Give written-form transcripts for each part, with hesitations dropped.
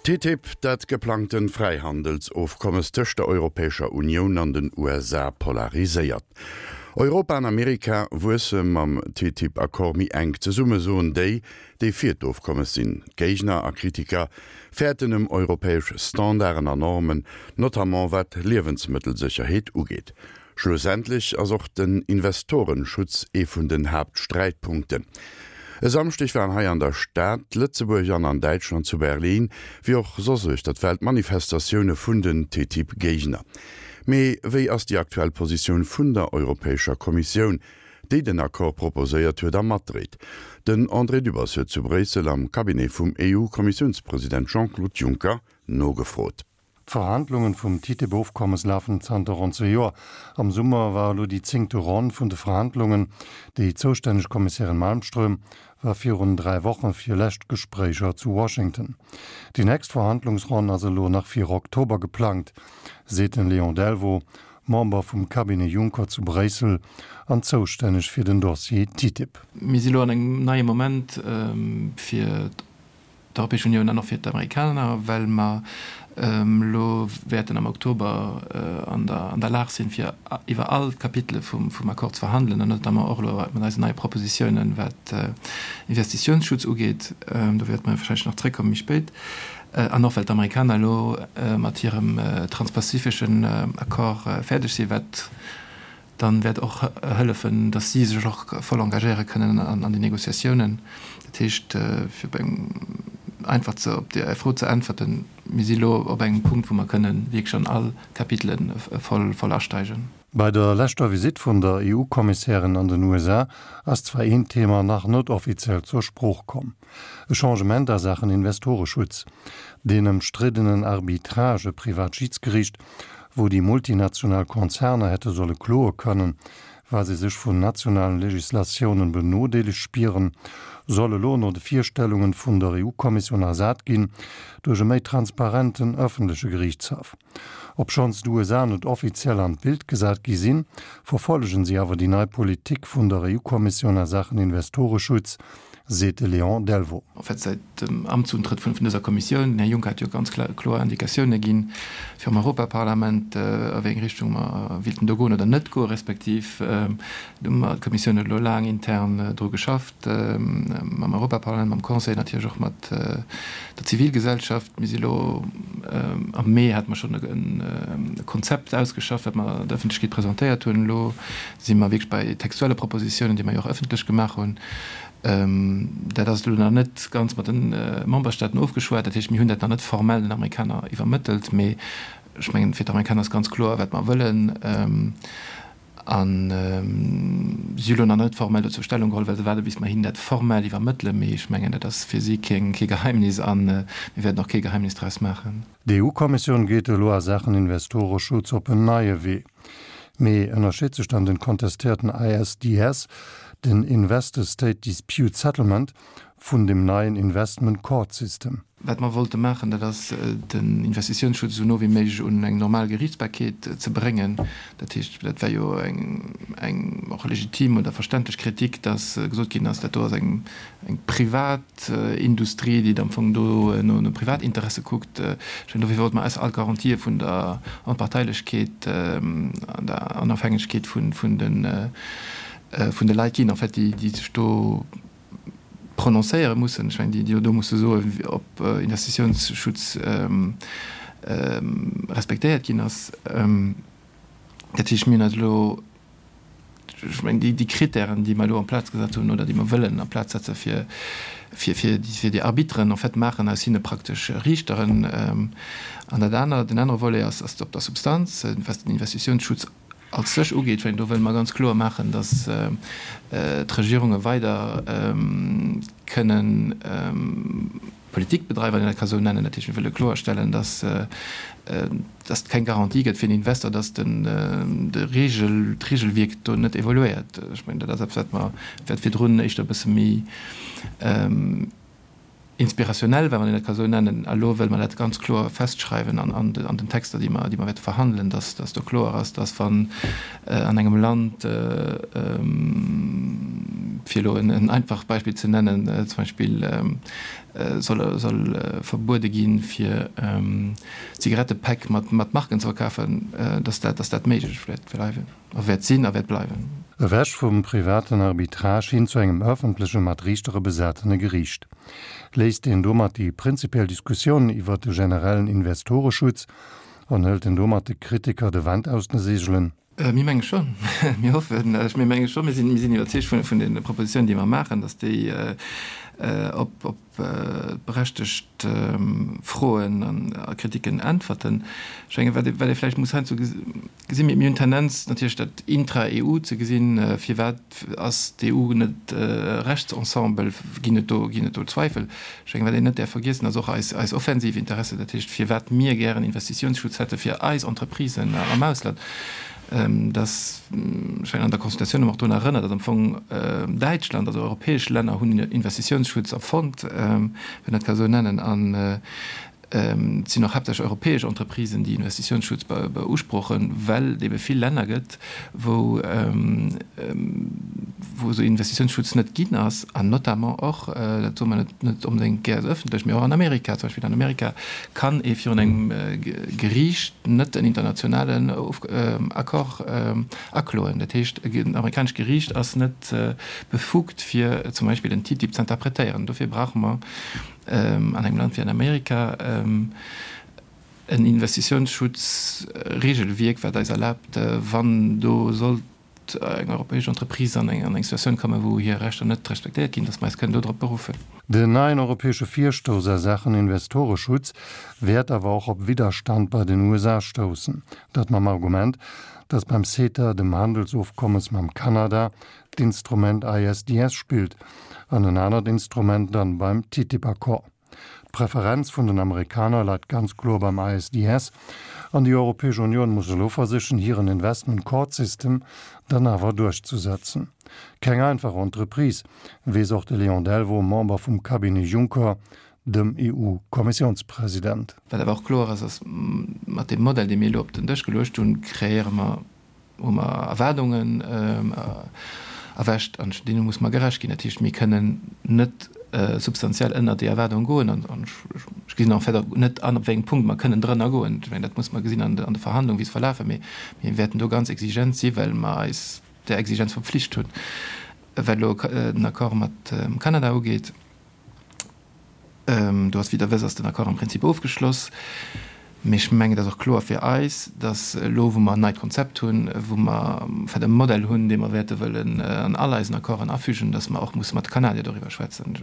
TTIP, dat geplangte Fräihandelsofkommes tëscht der Europäescher Unioun an den USA polariséiert. Europa an Amerika wuesse mam TTIP-Accord méi enk zesumme, soen déi, déi fir d'Ofkommes sinn. D'Géigner a Kritiker fäerten ëm europäesch Standarden an Normen, notamment wat d'Liewensmëttelsécherheet ugeet. Schlussendlech ass och den Investorenschutz ee vun den Haaptsträitpunkten. E Samschdeg waren hei an der Stad Lëtzebuerg an an Däitschland zu Berlin, wéi och soss uechter d'Welt Manifestatioune vun den TTIP-Géigner. Mee wéi ass déi aktuell Positioun vun der Europäescher Kommissioun, déi den Accord proposéiert huet a matdréit? Den André Dübbers huet zu Bréissel am Cabinet vum EU-Kommissiounspresident Jean-Claude Juncker nogefrot. D'Verhandlungen vum TTIP-Ofkommes lafen zanter ronn zwee Joer. Am Summer war elo déi zéngte Ronn vun de Verhandlungen. Déi zoustänneg Kommissärin Malmström war virun 3 Woche fir lescht Gespréicher zu Washington. Déi nächst Verhandlungsronn ass elo nach fir Oktober geplangt, seet den Léon Delvaux, Member vum Cabinet Juncker zu Bréissel an zoustänneg fir den Dossier TTIP. Mir si lo an engem neie Moment fir d'Europäesch Unioun an och fir d'Amerikaner, well mer elo wäerten am Oktober an der Lag sinn, fir iwwer all d'Kapitele vum Accord ze verhandelen, an notamment och elo mat eisen neie Propositiounen, wat Investitiounsschutz ugeet. Do wäerte mer warscheinlech nach zréckkommen méi spéit. An och well d'Amerikaner elo mat hirem transpazifeschen Accord fäerdeg sinn, wat dann wäert och hëllefen, dass si sech och voll engagéiere kënnen an déi Négociatiounen. Dat heescht, fir op eng einfach ze op déi Fro ze äntwerten, Mir si elo op engem Punkt, wou mer kënnen wierklech an all Kapitele voll voll asteigen. Bei der leschter Visitt vun der EU-Kommissärin an den USA ass zwar een Thema nach net offiziell zur Sprooch komm, e Changement a Saachen Investoreschutz. Deen ëmstriddenen Arbitrage, e privat Schidsgeriicht, wou déi multinational Konzerner hätte solle kloe kënnen, wa se sech vun nationalen Legislatiounen benodeelegt spieren, soll elo no de Virstellungen vun der EU-Kommissioun ersat ginn duerch e méi transparenten ëffentleche Geriichtshaff. Obschonns d'USA net offiziell an d'Bild gesat gi sinn, verfollegen si awer déi nei Politik vun der EU-Kommissioun a Saachen Investoreschutz, seet de Léon Delvaux. En fait, säit dem Amtsuntrëtt vun dëser Kommissioun, den Här Juncker hat jo ganz kloer Indikatioune ginn virum Europaparlament, a wéi eng Richtung mer wéilten do goen oder net goen, respektiv do hu mer, d'Kommissioun huet elo laang intern dru geschafft, mam Europaparlament, mam Conseil, natierlech och mat der Zivilgesellschaft. Mir si elo, am Mee hate mer schonn e Konzept ausgeschafft, wat mer der Ëffentlechkeet presentéiert hunn. Elo si mer wierklech bei textuelle Propositiounen, déi mer jo och ëffentlech gemaach hunn. Dat ass elo nach net ganz mat de Memberstaaten ofgeschwat. Dat heescht, mir hunn dat nach net formell den Amerikaner iwwermëttelt. Mee ech mengen, fir d'Amerikaner ass ganz kloer, wat mer wëllen. A si hu lo nach net formell dozou Stellung geholl, well se waarde bis mer hinnen dat formell iwwermëttelen. Mee ech mengen, dat ass fir si kee Geheimnis a mir wäerten och kee Geheimnis draus maachen. D'EU-Kommissioun geet elo a Saachen Investoreschutz op en neie Wee. Mee ënnerscheet sech dann den kontestéierten ISDS, den Investor-State Dispute Settlement, vun dem neien Investment Court System? Wat mer wollte maachen, dat ass den Investitiounsschutz esou no wéi méiglech un eng normal Geriichtsbarkeet ze bréngen. Dat heescht, dat war jo eng eng och legitim oder verständlech Kritik, dass gesot ginn ass, dat do ass eng eng privat, Industrie, déi am Fong do no Privatinteresse kuckt. Ech mengen, dofir wollte mer eis all Garantië vun der Onparteilechkeet an der Onofhängegkeet vun de Leit ginn, en fait, déi sech do prononcéiere mussen. Ech mengen, déi do musse soen, ob Investitiounsschutz respektéiert ginn ass. Dat heescht, mir hunn eis elo, ech mengen, déi, déi Kritären, déi mer elo en place gesat hunn oder déi mer wëllen en place setze fir, fir, fir déi, fir déi Arbitteren, en fait maachen aus hinne praktesch Riichteren. An dat anert, den anere Volet ass, ass op der Substanz, wat den Investitiounsschutz als sech ugeet. Ech mengen, do wëlle mer ganz kloer maachen, datt d'Regierunge weider kënnen, Politik bedreiwen, wann een dat ka sou nennen. Dat heescht, mir wëlle kloerstellen, dass dass et keng Garantie gëtt fir den Investor, dass den de Regel, d'Regelwierk do net evoluéiert. Ech mengen, dat ass eppes, wat mer, wat virdrun éischter e bësse méi inspirationnel war, wann een dat ka sou nennen. A lo wëlle mer dat ganz kloer festschreiwen an an an den Texter, déi mer, déi mer wäerte verhandelen, dass dass do kloer ass, dass wann an engem Land. Fir elo en einfacht Beispill ze nennen, zum Beispill soll soll verbuede ginn, fir Zigarettepäck mat mat Marken ze verkafen, dass dat dass dat méiglech wäert bleiwen a wäert sinn a wäert bleiwen. Ewech vum privaten Arbitrage hin zu engem ëffentleche mat Riichtere besatene Geriicht. Léisst een domat déi prinzipiell Diskussioun iwwert de generellen Investoreschutz an hëlt een domat de Kritiker de Wand aus de Seegelen? Mir menge schonn, mir hoffen, mir menge schonn, mir sinn, mir sinn iwwerzeegt vun, vun de Propositionen, déi mer maachen, datt déi op, op berechtegt Froen an a Kritiken äntwerten. Ech menge wat ee, wat ee vläicht muss heiansdo gesinn, mir, mir hunn d'Tendenz natierlech dat intra-EU ze gesinn, firwat ass d'EU net e Rechtsensemble, ginn et do, ginn et do Zweifel. Ech mengen, wat een net däerf vergiessen, ass och eis, eis offensiv Interesse, dat heescht, firwat mir gären Investitiounsschutz hätte fir eis Entreprisen am Ausland. Dass, ech mengen, an der Consultatioun hu mer och drun erënnert, datt am Fong Däitschland, also europäesch Länner hunn Investitiounsschutz erfonnt, wann een dat ka esou nennen, an et sinn och haaptsächlech europäesch Entreprisen, déi Investitiounsschutz beusprochen, well et ebe vill Länner gëtt, wou wou esou Investitiounsschutz net ginn ass, an notamment och, dat soe mer net net onbedéngt gär esou ëffentlech, mee och an Amerika zum Beispill. An Amerika kann ee virun engem Geriicht net en internationalen Accord akloen. Dat heescht, en amerikanescht Geriicht ass net befugt, fir zum Beispill en TTIP ze interpretéieren. Dofir brauche mer an engem Land wéi an Amerika en Investitiounsschutzregelwierk, wat eis erlaabt, wann do sollt eng europäesch Entreprise an eng Situatioun kommen, wou hir Rechter net respektéiert ginn, datt mer eis kënnen dodrop beruffen. Den neien europäesche Virstouss a Saachen Investoreschutz wäert awer och op Widderstand bei den USA stoussen. Dat mam Argument, datt beim CETA, dem Handelsofkommes mam Kanada, d'Instrument ISDS spillt an en anert Instrument dann beim TTIP-Accord. D'Preferenz vun den Amerikaner leit ganz kloer beim ISDS an déi Europäesch Unioun muss elo versichen hiren Investment Court System dann awer duerchzusetzen. Keng einfach Entreprise, weess och de Léon Delvaux, Member vum Cabinet Juncker, dem EU-Kommissiounspresident. Wat awer och kloer ass, ass, mat deem Modell, dee mir elo op den Dësch geluecht hunn, kreéiere mer hu mer Erwaardungen erwächt an deene muss mer gerecht ginn. Dat heescht, mir kënnen net substantiell ënnert déi Erwaardung goen an ech gesinn en fait och net an, op wéi engem Punkt mer kënnen drënner goen. Ech mengen, dat muss mer gesinn an de Verhandlungen, wéi se verlafen. Mee mir wäerten do ganz exigent si well mer eis där Exigenz verpflicht hunn. Wat elo den Accord mat Kanada ugeet, Do ass, wéi Der wësst, ass den Accord am Prinzip ofgeschloss. Mee ech mengen, et ass och kloer fir eis, datt elo, wou mer en neit Konzept hunn, wou mer en fait e Modell hunn, dee mer wäerte wëllen an all eisen Accorden afügen, datt mer och musse mat de Kanadier doriwwer schwätzen.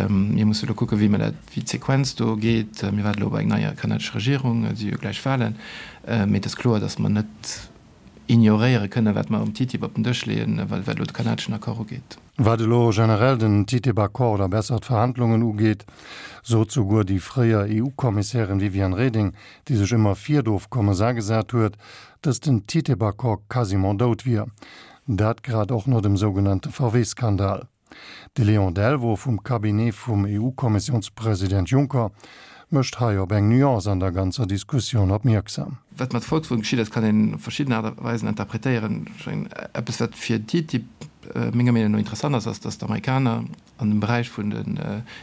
Mir musse elo kucken, wéi mer dat, wéi d'Sequenz do geet. Mir waarde elo op eng nei kanadesch Regierung, et si jo gläich Wahlen. Mee et ass kloer, datt mer net ignoréiere kënnen, wat mer um TTIP op den Dësch leeën, wat elo de kanadeschen Accord ugeet. Wat elo generell den TTIP-Accord oder besser d'Verhandlungen ugeet, sot souguer déi fréier EU-Kommissärin Viviane Reding, déi sech ëmmer fir d'Ofkommes agesat huet, datt den TTIP-Accord quasiment dout wier. Dat grad och no dem sougenannte VW-Skandal. De Léon Delvaux vum Cabinet vum EU-Kommissiounspresident Juncker mécht hei op eng Nuance an der ganzer Diskussioun opmierksam. Wat mat Volkswagen geschitt ass, kann een op verschidden Aart a Weisen interpretéieren. Ech mengen, eppes wat fir TTIP menger Meenung no interessant ass, ass, datt d'Amerikaner an dem Beräich vun den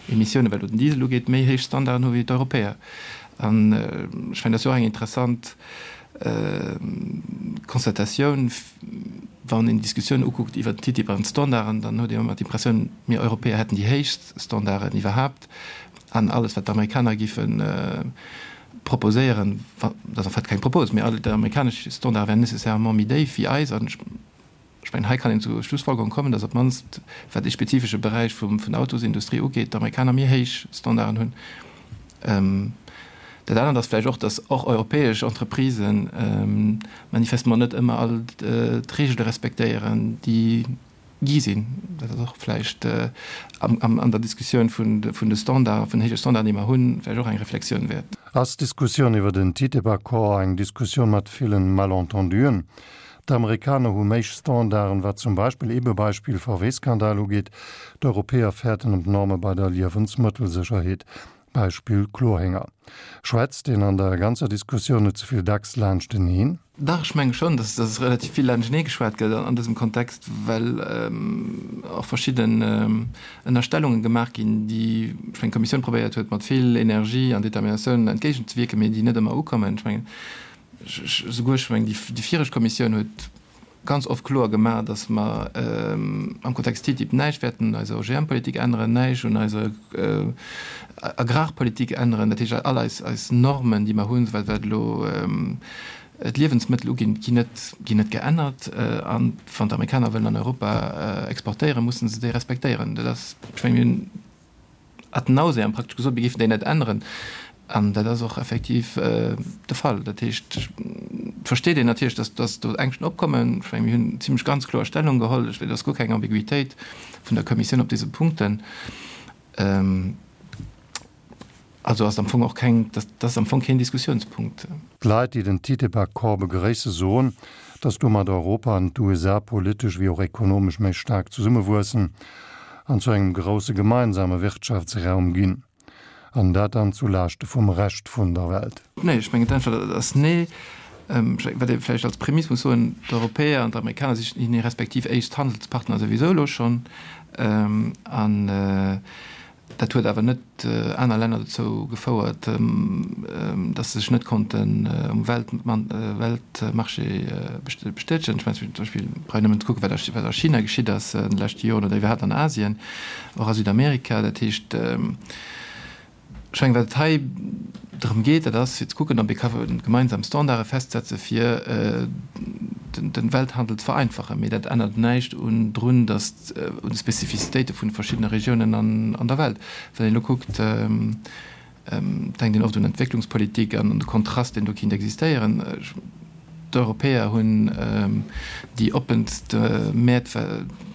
Emissiounen, wat elo den Diesel ugeet, méi héich Standarden hu wéi d'Europäer. An ech mengen, dat ass jo och eng interessant Constatatioun, wann een d'Diskussioun ukuckt iwwert den TTIP an d'Standarden, dann huet een ëmmer d'Impressioun, mir Europäer hätten déi héichst Standarden iwwerhaapt an alles wat d'Amerikaner géife proposéieren, dat ass en fait keng Propos, mee all déi amerikanesch Standarde wären nécessairement méi déif wéi eis. An ech mengen, hei kann een zur Schlussfolgerung kommen, datt op d'mannst, wat dee spezifesche Beräich vum, vun der Autosindustrie ugeet, d'Amerikaner méi héich Standarden hunn. Dat anert ass vläicht och, datt och europäesch Entreprisen manifestement net ëmmer all d'Regele respektéieren, déi gi sinn. Dat ass och vläicht an der Diskussioun vun de Standarden, vun den héije Standarden, déi mer hunn, vläicht och eng Reflexioun wäert. Ass d'Diskussioun iwwer den TTIP-Accord eng Diskussioun mat villen Malentenduen? D'Amerikaner hu méi Standarden, wat zum Beispill, ebe Beispill VW-Skandal ugeet, d'Europäer fäerten ëm d'Norme bei der Liewensmëttelsécherheet, Beispill Chlorhénger. Schwätzt een an der ganzer Diskussioun net ze vill dacks laanschteneen? Dach, ech menge schonn, dass dass relativ vill laanschtenee geschwat gëtt an dësem Kontext, well och verschidden Ënnerstellunge gemaach ginn, déi, ech mengen, d'Kommissioun probéiert huet, mat vill Energie an Determinatioun entgéigenzewierken, mee déi net ëmmer ukommen. Ech mengen, souguer, ech mengen, déi viregt Kommissioun huet ganz oft kloer gemaach, dass mer am Kontext TTIP näischt wäerten un eiser OGM-Politik änneren, näischt un eiser Agrarpolitik änneren. Dat heescht, all eis, eis Normen, déi mer hunn, wat elo d'Liewensmëttel uginn, ginn net, ginn net geännert. A wann d'Amerikaner wëllen an Europa exportéieren, mussen se déi respektéieren. Dat ass, ech mengen, mir hunn ad nauseam praktesch gesot, mir géifen déi net änneren. An dat ass och effektiv de Fall. Dat heescht, et versteet een natierlech, dass, dass do Ängschten opkommen. Ech mengen, mir hunn zimlech ganz kloer Stellung geholl. Ech, et ass guer keng Ambiguitéit vun der Kommissioun op dëse Punkten. Also ass am Fong och keng, dat ass am Fong keen Diskussiounspunkt. D'Leit, déi den TTIP-Accord begréisse soen, datt domat Europa an d'USA politesch wéi och ekonomesch méi staark zesummewuessen an zu engem grousse gemeinsame Wirtschaftsraum ginn. An dat dann zu Laaschte vum Rescht vun der Welt. Nee, ech mengen d'Äntwert ass nee. Wat ee vläicht als Prämiss muss soen, D'Europäer an d'Amerikaner si hir respektiv éischt Handelspartner souwisou elo schonn. An Dat huet awer net aner Länner dozou gefouert, datt se sech net konnten um Weltmarché bestätegen. Ech mengen zum Beispill, brauch een nëmmen ze kucken, wat a China geschitt ass an de leschte Joren oder iwwerhaapt an Asien, och a Südamerika. Dat heescht, ech mengen, wat et hei drëm geet, dat ass fir ze kucken, ob ee ka gemeinsam Standarde festsetze fir de Welthandel ze vereinfachen. Mee dat ännert näischt un drun, datt un de Spezifizitéite vun de verschiddene Regiounen an der Welt. Wann een elo kuckt, denkt een oft un Entwécklungspolitik an un de Kontrast, deen do kinnt existéieren. D'Europäer hunn déi oppenst Mäert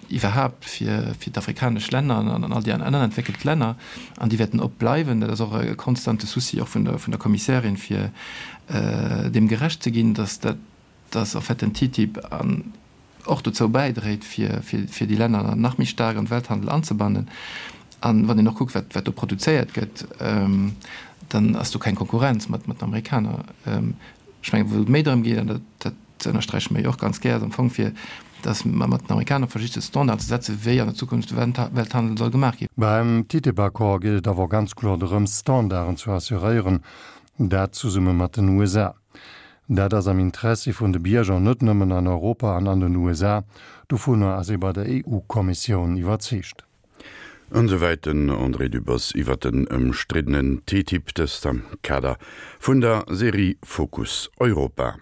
iwwerhaapt fir d'afrikanesch Länner an all déi aner entwéckelt Länner, an déi wäerten op bleiwen. Dat ass och e konstante Souci och vun der Kommissärin, fir deem gerecht ze ginn, datt dat, datt en fait den TTIP an och dozou bäidréit, fir déi Länner nach méi staark an de Welthandel anzebannen. An wann een och kuckt, wat do produzéiert gëtt, dann ass do keng Konkurrenz mat den Amerikaner. Ech mengen, wou et méi drëm geet, an dat ënnersträiche mer jo och ganz gär, ass am Fong fir, datt mer mat den Amerikaner versiche Standarden ze setzen, wéi an der Zukunft de Welthandel soll gemaach ginn. Beim TTIP-Accord geet et awer ganz kloer drëms, Standarden ze assuréieren, dat zesumme mat den USA. Dat ass am Interessi vun de Bierger, net nëmmen an Europa an an den USA. Dovunner ass ee bei der EU-Kommissioun iwwerzeegt. An esouwäit den André Dübbers iwwer den ëmstriddenen TTIP, dëst am Kader vun der Serie Fokus Europa.